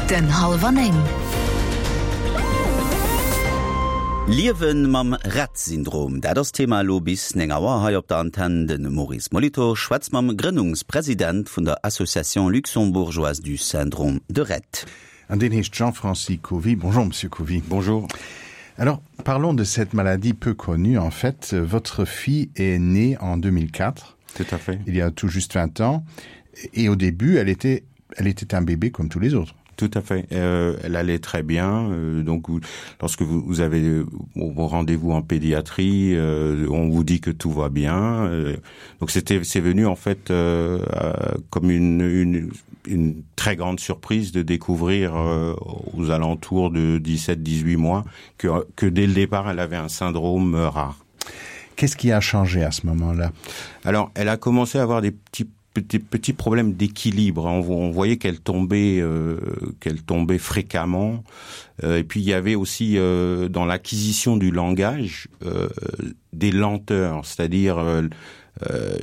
Den hallwer 9. Liewen mam Rett-Syndrom, dat ass d'Thema elo bis 9 Auer hei op der Antenn. De Maurice Molitor schwätzt mam Grënnungspresident vun der Association luxembourgeoise du syndrome de Rett. An deen heescht Jean-Francis Covy. Bonjour Monsieur Covy. Bonjour. Alors parlons de cette maladie peu connue en fait. Votre fille est née en 2004. Tout à fait. Il y a tout juste 20 ans et au début elle était elle était un bébé comme tous les autres. Tout à fait. Euh, elle allait très bien. Euh, donc vous, lorsque vous, vous avez euh, vos rendez-vous en pédiatrie, euh, on vous dit que tout va bien. Euh, donc c'était c'est venu en fait euh, euh, comme une, une, une très grande surprise de découvrir euh, aux alentours de 17-18 mois que, que dès le départ elle avait un syndrome euh, rare. Qu'est-ce qui a changé à ce moment-là Alors elle a commencé à avoir des petits petits, petits problèmes d'équilibre. On, on voyait qu'elle tombait, euh, qu'elle tombait fréquemment. Euh, et puis il y avait aussi euh, dans l'acquisition du langage euh, des lenteurs, c'est-à-dire euh, euh,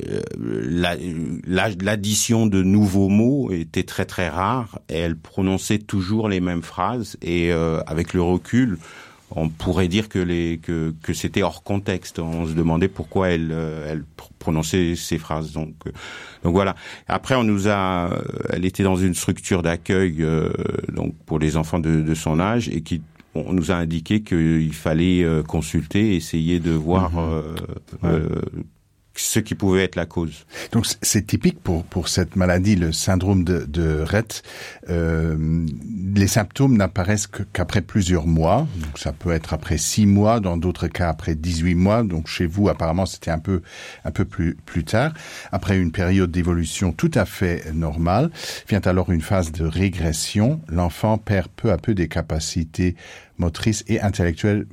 l'addition la, la, de nouveaux mots était très très rare et elle prononçait toujours les mêmes phrases et euh, avec le recul, euh, on pourrait dire que les que, que c'était hors contexte on se demandait pourquoi elle euh, elle prononçait ces phrases donc euh, donc voilà après on nous a euh, elle était dans une structure d'accueil euh, donc pour les enfants de, de son âge et qui on nous a indiqué qu'il fallait euh, consulter essayer de voir mmh. euh, ouais. euh, ce qui pouvait être la cause. Donc c'est typique pour, pour cette maladie, le syndrome de, de Rett. Euh, les symptômes n'apparaissent qu'après qu plusieurs mois. Donc ça peut être après six mois, dans d'autres cas après 18 mois. Donc chez vous, apparemment, c'était un peu, un peu plus, plus tard. Après une période d'évolution tout à fait normale, vient alors une phase de régression. L'enfant perd peu à peu des capacités motrices et intellectuelles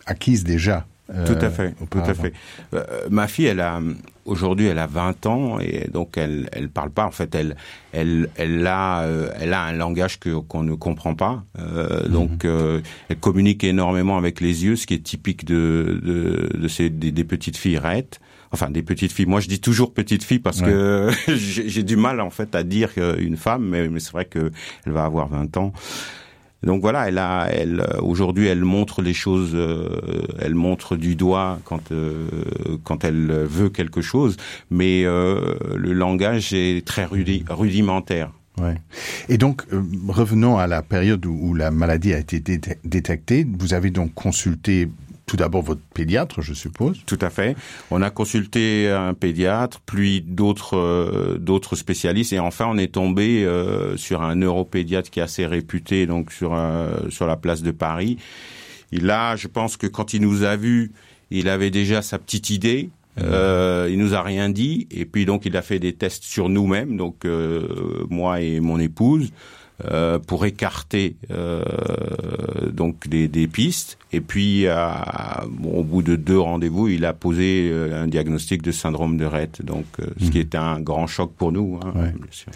acquises déjà. Euh, tout à fait, tout à fait. Euh, ma fille, elle a aujourd'hui, elle a 20 ans et donc elle elle parle pas. En fait, elle elle elle a euh, elle a un langage que qu'on ne comprend pas. Euh, mm -hmm. Donc euh, elle communique énormément avec les yeux, ce qui est typique de de, de ces des, des petites filles rêtes. Enfin, des petites filles. Moi, je dis toujours petite fille parce ouais. que j'ai du mal en fait à dire une femme, mais, mais c'est vrai que elle va avoir 20 ans. Donc voilà, elle a, elle aujourd'hui, elle montre les choses, euh, elle montre du doigt quand euh, quand elle veut quelque chose, mais euh, le langage est très rudi rudimentaire. Ouais. Et donc euh, revenons à la période où, où la maladie a été dé détectée. Vous avez donc consulté tout d'abord votre pédiatre, je suppose. Tout à fait. On a consulté un pédiatre, puis d'autres euh, d'autres spécialistes et enfin on est tombé euh, sur un neuropédiatre qui est assez réputé donc sur euh, sur la place de Paris. Et là, je pense que quand il nous a vus, il avait déjà sa petite idée. Euh, il nous a rien dit et puis donc il a fait des tests sur nous-mêmes, donc euh, moi et mon épouse. Euh, pour écarter euh, donc des, des pistes et puis à, bon, au bout de deux rendez-vous il a posé euh, un diagnostic de syndrome de Rett donc euh, ce mmh. qui est un grand choc pour nous hein, ouais. bien sûr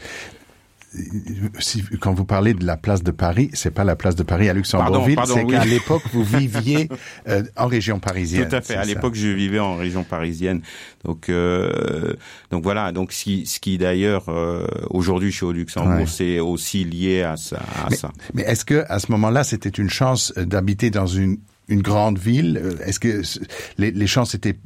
si, quand vous parlez de la place de Paris, c'est pas la place de Paris à Luxembourgville, c'est oui. qu'à l'époque vous viviez euh, en région parisienne. Tout à fait. À l'époque, je vivais en région parisienne. Donc, euh, donc voilà. Donc, ce, ce qui d'ailleurs euh, aujourd'hui je suis au Luxembourg, ouais. c'est aussi lié à ça. À mais, ça. mais est-ce que à ce moment-là, c'était une chance d'habiter dans une une grande ville est-ce que les, les chances étaient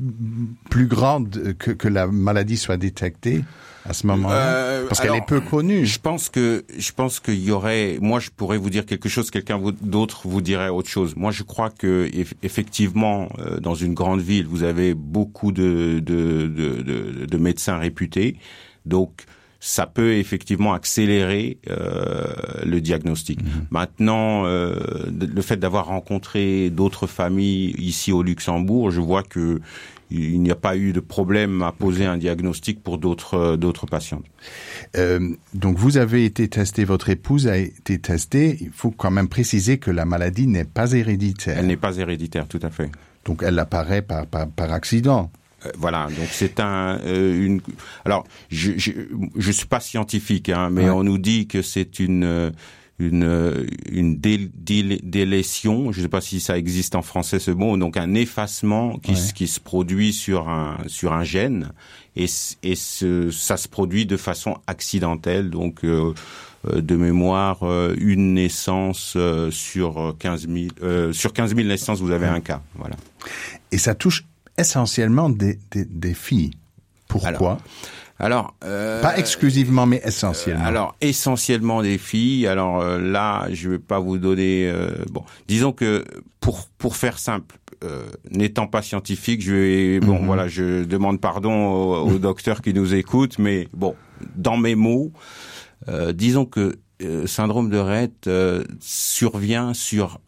plus grandes que, que la maladie soit détectée à ce moment euh, parce qu'elle est peu connue je pense que je pense qu'il y aurait moi je pourrais vous dire quelque chose quelqu'un d'autre vous dirait autre chose moi je crois que effectivement euh, dans une grande ville vous avez beaucoup de de, de, de, de médecins réputés donc ça peut effectivement accélérer euh, le diagnostic. Mmh. Maintenant, euh, le fait d'avoir rencontré d'autres familles ici au Luxembourg, je vois que il n'y a pas eu de problème à poser un diagnostic pour d'autres euh, d'autres patients. Euh, donc vous avez été testé, votre épouse a été testée. Il faut quand même préciser que la maladie n'est pas héréditaire. Elle n'est pas héréditaire, tout à fait. Donc elle apparaît par, par, par accident. Euh, voilà donc c'est un euh, une alors je, je je suis pas scientifique hein, mais ouais. on nous dit que c'est une euh, une une dé dé délétion je sais pas si ça existe en français ce mot donc un effacement qui, ouais. qui se produit sur un sur un gène et, et ce, ça se produit de façon accidentelle donc euh, euh de mémoire euh, une naissance euh, sur 15 000 euh, sur 15 000 naissances vous avez ouais. un cas voilà et ça touche essentiellement des, des, des filles pourquoi alors, Alors, euh, pas exclusivement mais essentiellement euh, alors essentiellement des filles alors euh, là je vais pas vous donner euh, bon disons que pour pour faire simple euh, n'étant pas scientifique je vais bon mm -hmm. voilà je demande pardon au, au docteur qui nous écoute mais bon dans mes mots euh, disons que euh, syndrome de Rett euh, survient sur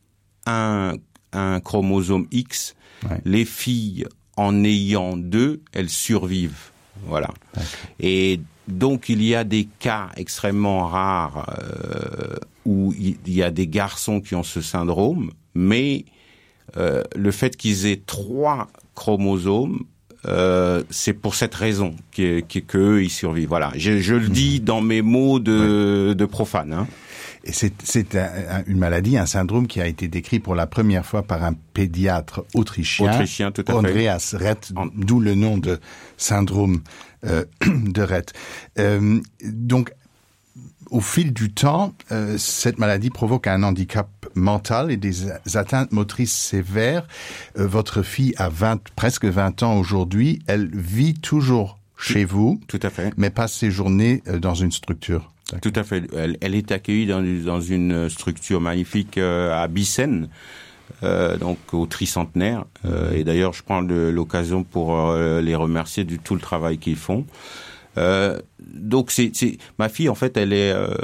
un un chromosome X ouais. les filles en ayant deux elles survivent voilà et donc il y a des cas extrêmement rares euh, où il y a des garçons qui ont ce syndrome mais euh, le fait qu'ils aient trois chromosomes euh, c'est pour cette raison que, que, que ils survivent voilà je, je le dis mmh. dans mes mots de, ouais. de profane hein. Et c'est un, un, une maladie, un syndrome qui a été décrit pour la première fois par un pédiatre autrichien, autrichien tout à Andreas Rett, d'où le nom de syndrome euh, de Rett. Euh, donc, au fil du temps, euh, cette maladie provoque un handicap mental et des atteintes motrices sévères. Euh, votre fille a 20, presque 20 ans aujourd'hui, elle vit toujours chez vous, tout à fait. mais passe ses journées euh, dans une structure. Tout à fait. Elle, elle est accueillie dans, dans une structure magnifique euh, à Bissen, euh, donc au tricentenaire. Euh, et d'ailleurs, je prends l'occasion pour euh, les remercier du tout le travail qu'ils font. Euh, donc c'est ma fille en fait elle est euh,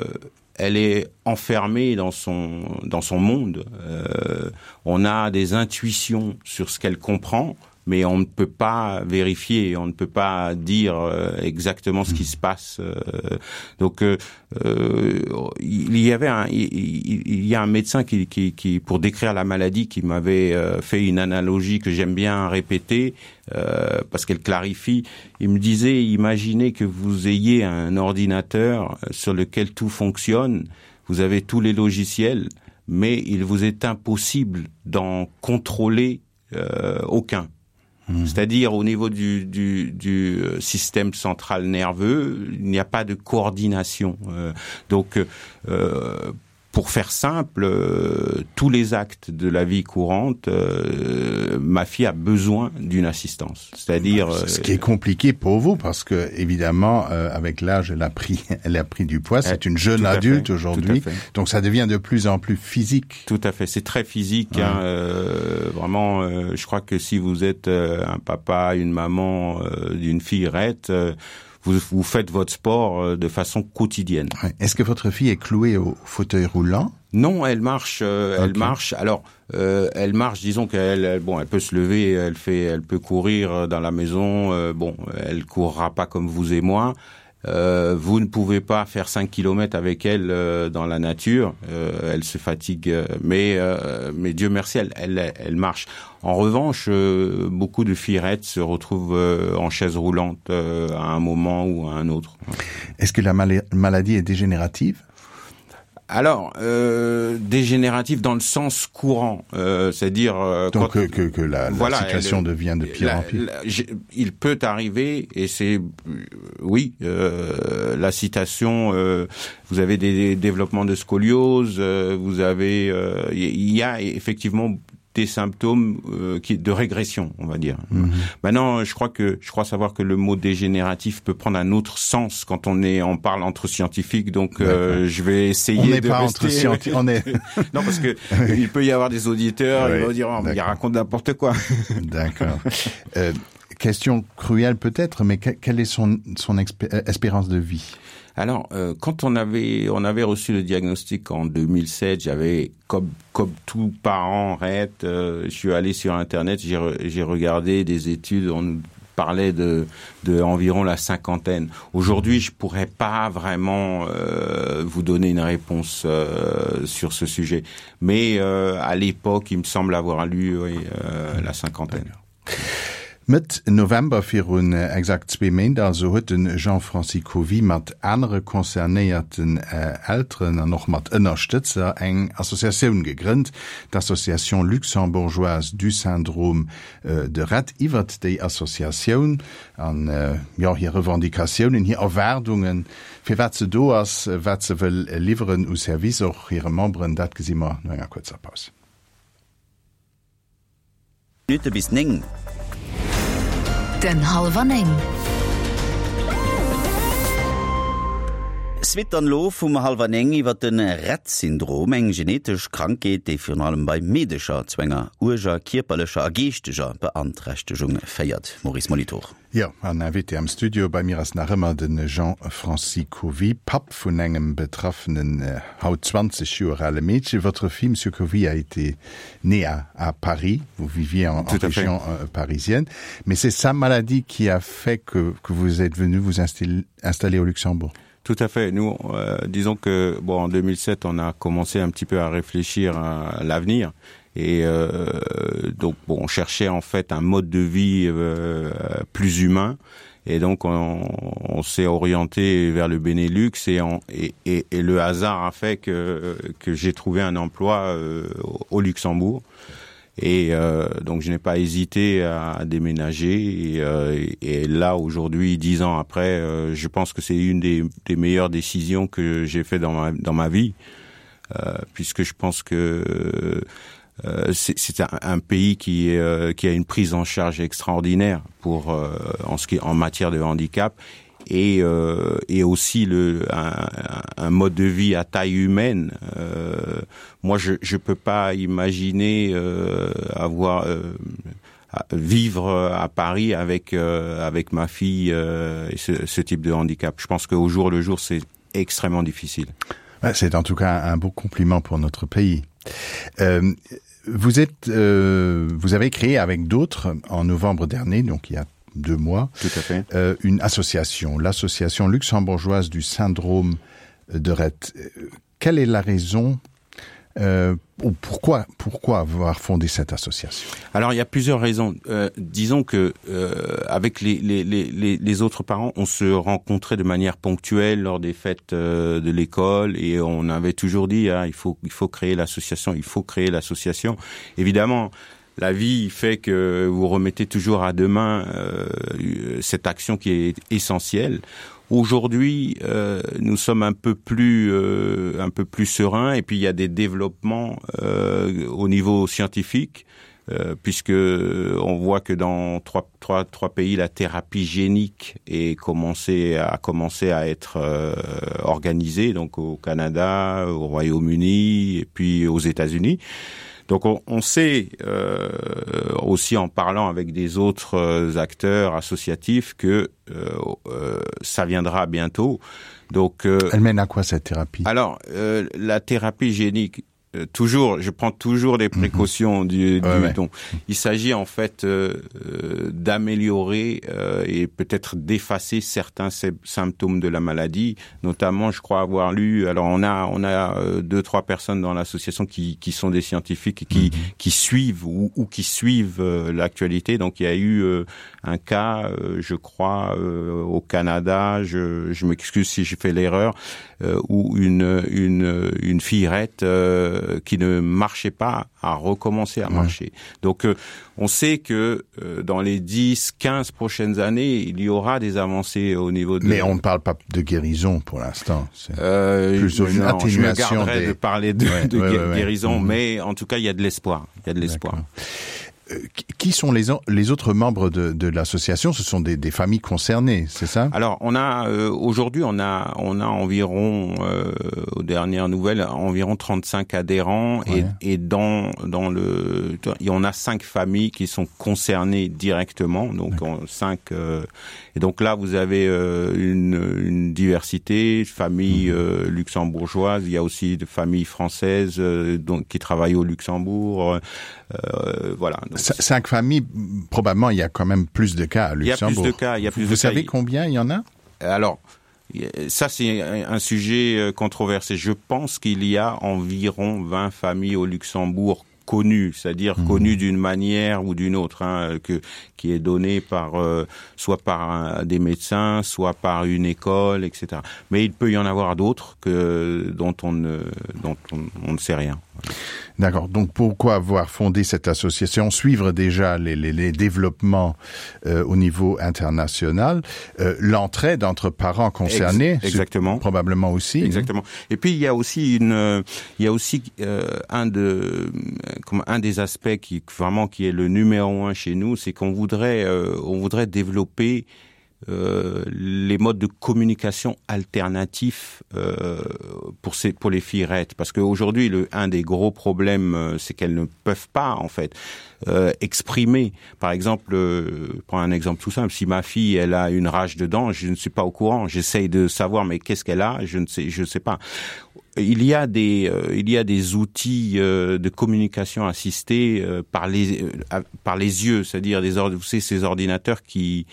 elle est enfermée dans son dans son monde euh, on a des intuitions sur ce qu'elle comprend mais on ne peut pas vérifier, on ne peut pas dire euh, exactement ce qui se passe. Euh, donc euh, euh, il y avait un, il, il y a un médecin qui, qui, qui pour décrire la maladie qui m'avait euh, fait une analogie que j'aime bien répéter euh, parce qu'elle clarifie. Il me disait imaginez que vous ayez un ordinateur sur lequel tout fonctionne, vous avez tous les logiciels, mais il vous est impossible d'en contrôler euh, aucun. Mmh. C'est-à-dire au niveau du, du, du euh, système central nerveux, il n'y a pas de coordination. Euh, donc euh, pour faire simple, euh, tous les actes de la vie courante, euh, ma fille a besoin d'une assistance. C'est-à-dire ce qui est compliqué pour vous parce que évidemment euh, avec l'âge elle a pris elle a pris du poids, c'est une jeune adulte aujourd'hui. Donc ça devient de plus en plus physique. Tout à fait, c'est très physique ouais. hein, euh, vraiment euh, je crois que si vous êtes euh, un papa, une maman euh, d'une fille rête, euh, vous, vous faites votre sport euh, de façon quotidienne. Est-ce que votre fille est clouée au fauteuil roulant Non, elle marche euh, elle okay. marche alors euh, elle marche disons qu'elle bon elle peut se lever, elle fait elle peut courir euh, dans la maison euh, bon elle courra pas comme vous et moi. Euh, vous ne pouvez pas faire 5 km avec elle euh, dans la nature, euh, elle se fatigue, euh, mais, euh, mais Dieu merci, elle, elle, elle marche. En revanche, euh, beaucoup de fillerettes se retrouvent euh, en chaise roulante euh, à un moment ou à un autre. Est-ce que la mal maladie est dégénérative Alors euh, dégénératif dans le sens courant, euh, c'est-à-dire euh, donc que, que, que la, la voilà, situation elle, devient de pire la, en pire. La, il peut arriver et c'est euh, oui euh, la citation euh, vous avez des, des développements de scoliose, euh, vous avez euh, il y a effectivement des symptômes euh, qui de régression on va dire mm -hmm. maintenant je crois que je crois savoir que le mot dégénératif peut prendre un autre sens quand on est on parle entre scientifiques donc euh, je vais essayer on de pas rester... entre on est non parce que il peut y avoir des auditeurs oui, ils vont dire oh, il raconte n'importe quoi d'accord euh, question cruelle peut-être mais que, quelle est son son euh, espérance de vie Alors, euh, quand on avait, on avait reçu le diagnostic en 2007, j'avais, comme, comme tout parent, rête, euh, je suis allé sur Internet, j'ai re, regardé des études, on nous parlait de, de environ la cinquantaine. Aujourd'hui, je pourrais pas vraiment euh, vous donner une réponse euh, sur ce sujet. Mais euh, à l'époque, il me semble avoir lu oui, euh, la cinquantaine. Mëtt November, virun exakt zwee Méint also, huet de Jean-Francis Covy mat anere concernéierten Elteren an och mat Ënnerstëtzer eng Associatioun gegrënnt, d'Association luxembourgeoise du syndrome de Rett. Iwwert déi Associatioun an, jo, hir Revendicatiounen, hir Erwaardungen, firwat se do ass, wat se wëll liwweren u Service och hire Memberen, dat gesi mer no enger kuerzer Paus. Minutte bis 9. Den Hallwer 9. Suite dann elo vum Hallwer 9 iwwer de Rett-Syndrom, eng genetesch Krankheet, déi virun allem bei Meedecher zu enger uerger kierperlecher a geeschteger Beanträchtegung féiert. Maurice Molitor. Jo, an Invité am Studio bei mir ass nach ëmmer de Jean-Francis Covy, Papp vun engem betraffenen, haut 20 Joer ale Meedchen. Votre fille, Monsieur Covy, a été née à à Paris, vous viviez en en région parisienne, mais c'est sa maladie qui a fait que que vous êtes venu vous installer au Luxembourg? Tout à fait. Nous, euh, disons que bon, en 2007, on a commencé un petit peu à réfléchir à l'avenir et euh, donc bon, on cherchait en fait un mode de vie euh, plus humain et donc on, on s'est orienté vers le Benelux et, on, et, et, et le hasard a fait que, que j'ai trouvé un emploi euh, au Luxembourg et euh, donc je n'ai pas hésité à déménager et, euh, et là aujourd'hui dix ans après euh, je pense que c'est une des, des meilleures décisions que j'ai fait dans ma, dans ma vie euh, puisque je pense que euh, c'est un, un pays qui, euh, qui a une prise en charge extraordinaire pour euh, en ce qui en matière de handicap et, euh, et aussi le un, un mode de vie à taille humaine euh, moi je je peux pas imaginer euh, avoir euh, vivre à Paris avec euh, avec ma fille euh, et ce, ce type de handicap je pense qu'au jour le jour c'est extrêmement difficile c'est en tout cas un beau compliment pour notre pays euh, vous êtes euh, vous avez créé avec d'autres en novembre dernier donc il y a deux mois tout à fait euh, une association l'association luxembourgeoise du syndrome de Rett euh, quelle est la raison euh, ou pourquoi pourquoi avoir fondé cette association alors il y a plusieurs raisons euh, disons que euh, avec les, les, les, les autres parents on se rencontrait de manière ponctuelle lors des fêtes euh, de l'école et on avait toujours dit ah, il faut il faut créer l'association il faut créer l'association évidemment la vie fait que vous remettez toujours à demain euh, cette action qui est essentielle aujourd'hui euh, nous sommes un peu plus euh, un peu plus serein et puis il y a des développements euh, au niveau scientifique euh, puisque on voit que dans trois, trois, trois pays la thérapie génique est commencé à commencer à être euh, organisée donc au Canada au Royaume-Uni et puis aux États-Unis donc on, on sait euh, aussi en parlant avec des autres euh, acteurs associatifs que euh, euh, ça viendra bientôt donc euh, elle mène à quoi cette thérapie alors euh, la thérapie génique Euh, toujours je prends toujours des mhm. précautions mm -hmm. du, du ouais, ouais. donc il s'agit en fait euh, euh, d'améliorer euh, et peut-être d'effacer certains symptômes de la maladie notamment je crois avoir lu alors on a on a euh, deux trois personnes dans l'association qui, qui sont des scientifiques et qui mm -hmm. qui suivent ou, ou qui suivent euh, l'actualité donc il y a eu euh, un cas euh, je crois euh, au Canada je, je m'excuse si j'ai fait l'erreur euh, ou une une une fillerette euh, qui ne marchait pas a recommencé à marcher. Ouais. Donc euh, on sait que euh, dans les 10 15 prochaines années, il y aura des avancées au niveau de Mais on ne parle pas de guérison pour l'instant. Euh, plus une non, atténuation des... de parler de, ouais, de ouais, ouais, guérison, ouais. mais en tout cas il y a de l'espoir, il y a de l'espoir. Euh, qui sont les, les autres membres de, de l'association ce sont des, des familles concernées c'est ça alors on a euh, aujourd'hui on a on a environ euh, aux dernières nouvelles environ 35 adhérents ouais. et, et dans dans le et on a cinq familles qui sont concernées directement donc en cinq euh, et donc là vous avez euh, une, une diversité famille mmh. euh, luxembourgeoise il y a aussi de familles françaises euh, donc qui travaillent au luxembourg euh, voilà donc cinq familles probablement il y a quand même plus de cas à luxembourg il y a plus de cas il y a plus vous de savez cas. combien il y en a alors ça c'est un sujet euh, controversé je pense qu'il y a environ 20 familles au luxembourg. connu, c'est-à-dire mmh. connu d'une manière ou d'une autre, hein, que, qui est donné par euh, soit par un, des médecins, soit par une école, etc. Mais il peut y en avoir d'autres que dont on ne, dont on, on ne sait rien. D'accord. Donc pourquoi avoir fondé cette association, suivre déjà les, les, les développements euh, au niveau international, euh, l'entraide entre parents concernés Ex exactement probablement aussi. Exactement. Et puis il y a aussi une euh, il y a aussi euh, un de comme un des aspects qui vraiment qui est le numéro un chez nous, c'est qu'on voudrait euh, on voudrait développer euh, les modes de communication alternatifs euh, pour ces pour les fillerettes parce qu'aujourd'hui le un des gros problèmes euh, c'est qu'elles ne peuvent pas en fait euh, exprimer par exemple euh, prends un exemple tout simple si ma fille elle a une rage dedans je ne suis pas au courant j'essaye de savoir mais qu'est-ce qu'elle a je ne sais je sais pas il y a des euh, il y a des outils euh, de communication assistée euh, par les euh, par les yeux c'est à dire des ordres vous savez, ces ordinateurs qui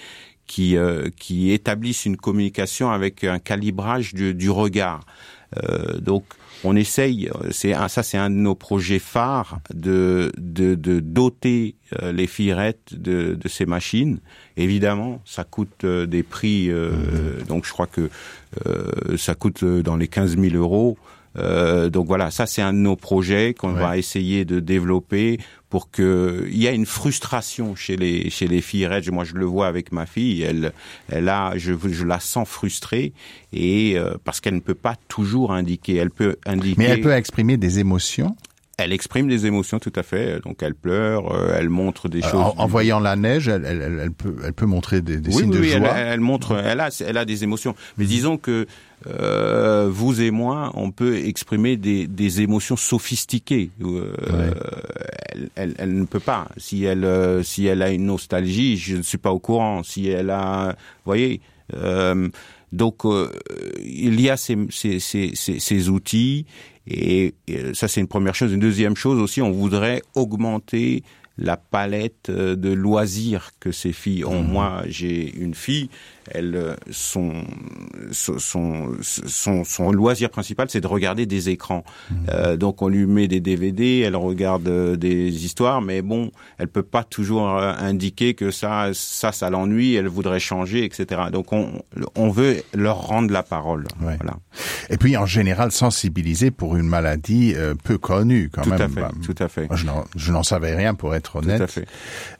qui euh, qui établissent une communication avec un calibrage du, du regard euh, donc on essaye c'est un ça c'est un de nos projets phares de de, de doter euh, les fillerettes de, de ces machines évidemment ça coûte euh, des prix euh, mmh. donc je crois que euh, ça coûte euh, dans les 15000 euros euh, donc voilà ça c'est un de nos projets qu'on ouais. va essayer de développer pour que il y a une frustration chez les chez les filles reg moi je le vois avec ma fille elle elle a je, je la sens frustrée et euh, parce qu'elle ne peut pas toujours indiquer elle peut indiquer mais elle peut exprimer des émotions elle exprime des émotions tout à fait donc elle pleure euh, elle montre des euh, choses en, en voyant la neige elle, elle, elle, elle peut elle peut montrer des, des oui, signes oui, de oui, joie elle, elle montre elle a elle a des émotions mais disons que euh, vous et moi on peut exprimer des, des émotions sophistiquées euh, ouais. elle, elle, elle ne peut pas si elle euh, si elle a une nostalgie je ne suis pas au courant si elle a voyez euh, donc euh, il y a ces, ces, ces, ces, ces outils et, et ça c'est une première chose une deuxième chose aussi on voudrait augmenter la palette euh, de loisirs que ces filles ont mmh. moi j'ai une fille elle euh, son son son son loisir principal c'est de regarder des écrans mmh. euh, donc on lui met des dvd elle regarde euh, des histoires mais bon elle peut pas toujours indiquer que ça ça ça l'ennuie elle voudrait changer etc donc on on veut leur rendre la parole ouais. voilà et puis en général sensibiliser pour une maladie euh, peu connue quand tout même à fait, bah, tout à fait je n'en savais rien pour être honnête tout à fait.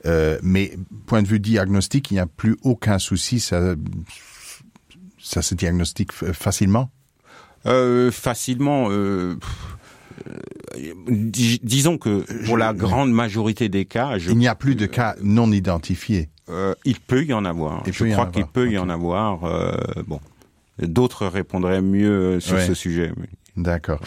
Euh, mais point de vue diagnostic il n'y a plus aucun souci ça ça se diagnostique facilement euh, facilement euh, euh disons que pour la grande majorité des cas je, il n'y a plus de cas non identifiés euh, il peut y en avoir il je crois qu'il peut okay. y en avoir euh, bon d'autres répondraient mieux sur ouais. ce sujet mais. D'accord.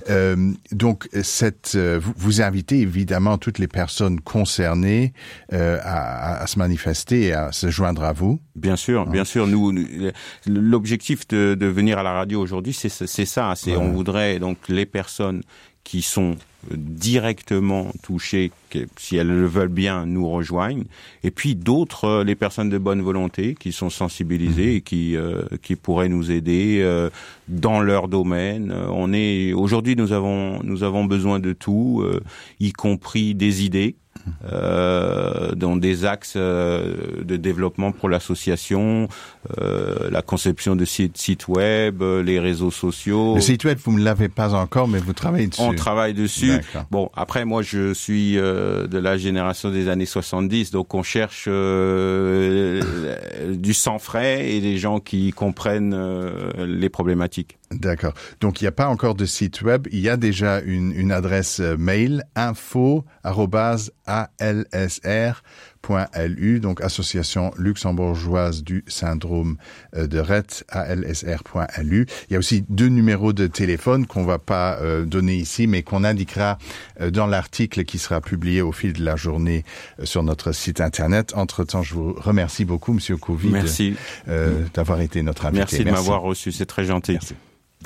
Euh, donc cette, euh, vous, vous invitez évidemment toutes les personnes concernées euh, à, à se manifester et à se joindre à vous. Bien sûr, bien sûr. Nous, nous l'objectif de, de venir à la radio aujourd'hui, c'est ça. C'est ouais. on voudrait donc les personnes qui sont directement touchées, que, si elles le veulent bien, nous rejoignent. Et puis d'autres, euh, les personnes de bonne volonté qui sont sensibilisées mmh. et qui, euh, qui pourraient nous aider euh, dans leur domaine. Euh, on est aujourd'hui nous avons nous avons besoin de tout, euh, y compris des idées euh, dans des axes euh, de développement pour l'association, euh, la conception de sites site web, euh, les réseaux sociaux. Le site web, vous ne l'avez pas encore, mais vous travaillez dessus. On travaille dessus. Bon, après, moi, je suis euh, de la génération des années 70, donc on cherche euh, du sang frais et des gens qui comprennent euh, les problématiques. D'accord. Donc il n'y a pas encore de site web, il y a déjà une, une adresse euh, mail info alsr .lu donc association luxembourgeoise du syndrome euh, de Rett alsr.lu. Il y a aussi deux numéros de téléphone qu'on va pas euh, donner ici mais qu'on indiquera euh, dans l'article qui sera publié au fil de la journée euh, sur notre site internet. Entre-temps, je vous remercie beaucoup monsieur Covid Merci euh, d'avoir été notre invité. Merci de m'avoir reçu, c'est très gentil. Merci.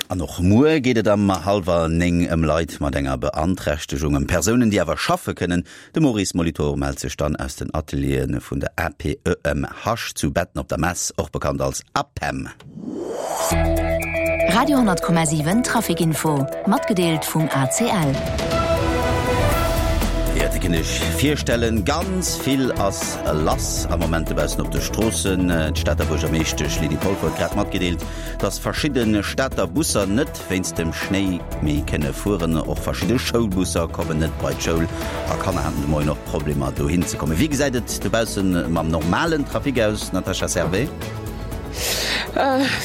An och muer geet et am hallwer 9 ëm Leit mat enger Beanträchtegung, ëm Persounen, déi awer schaffe kënnen. De Maurice Molitor mellt sech dann aus den Ateliere vun der APEMH zu Betten op der Mess, och bekannt als APEM. Radio 10,7 Traficinfo, matgedeelt vum ACL. Dir kënnt Iech virstellen, ganz vill ass lass am Moment dobaussen op de Stroossen. D'Stater Buergermeeschtesch Lydie Polfer huet grad matgedeelt, dass verschidde Stater Busser net wéinst dem Schnéi méi kënne fueren. Och verschidde Schoulbusser kommen net bei d'Schoul a Kanner haten de Moien och Problemer dohin ze kommen. Wéi gesäit et dobausse mam normalen Trafic aus, Natasha Servais?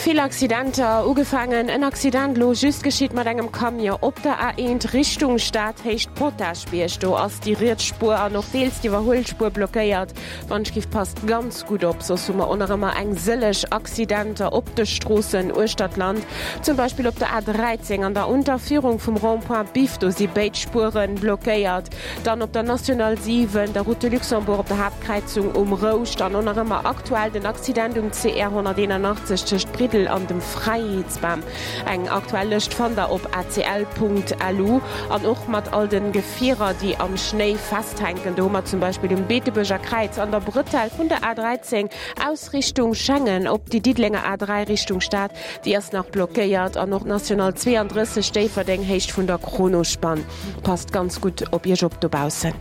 Vill Accidenter, ugefaangen en Accident elo just geschitt mat engem Camion op der A1 Richtung Stad, Héicht Potaschbierg. Do ass déi riets Spuer an och deels d'Iwwerhuelspuer blockéiert. Wannschgift passt ganz gutt op, soss hu mer och nach ëmmer eng sëlleg Accidenter op de Stroossen uechter d'Land. Zum Beispill op der A13 an der Unterführung vum Rond-point Biff, do si béid Spuere blockéiert. Dann op der National 7, der Route de Luxembourg op der Haaptkräizung um Rouscht an och nach ëmmer aktuell den Accident um CR 181 tëscht Briddel an dem Fräiheetsbam. Eng aktuell Lëscht fannt der op acl.lu an och mat all den Gefierer déi am Schnéi festhänken. Do hu mer zum Beispill um Beetebuerger Kräiz an der Brëtell vun der A13 aus Richtung Schengen op déi Diddelenger A3 Richtung Stad, déi ass nach blockéiert an och d'National 32 Déifferdeng Héicht vun der Kronospann. Passt ganz gutt op iech op dobaussen.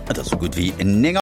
Et ass sou gutt wéi 9.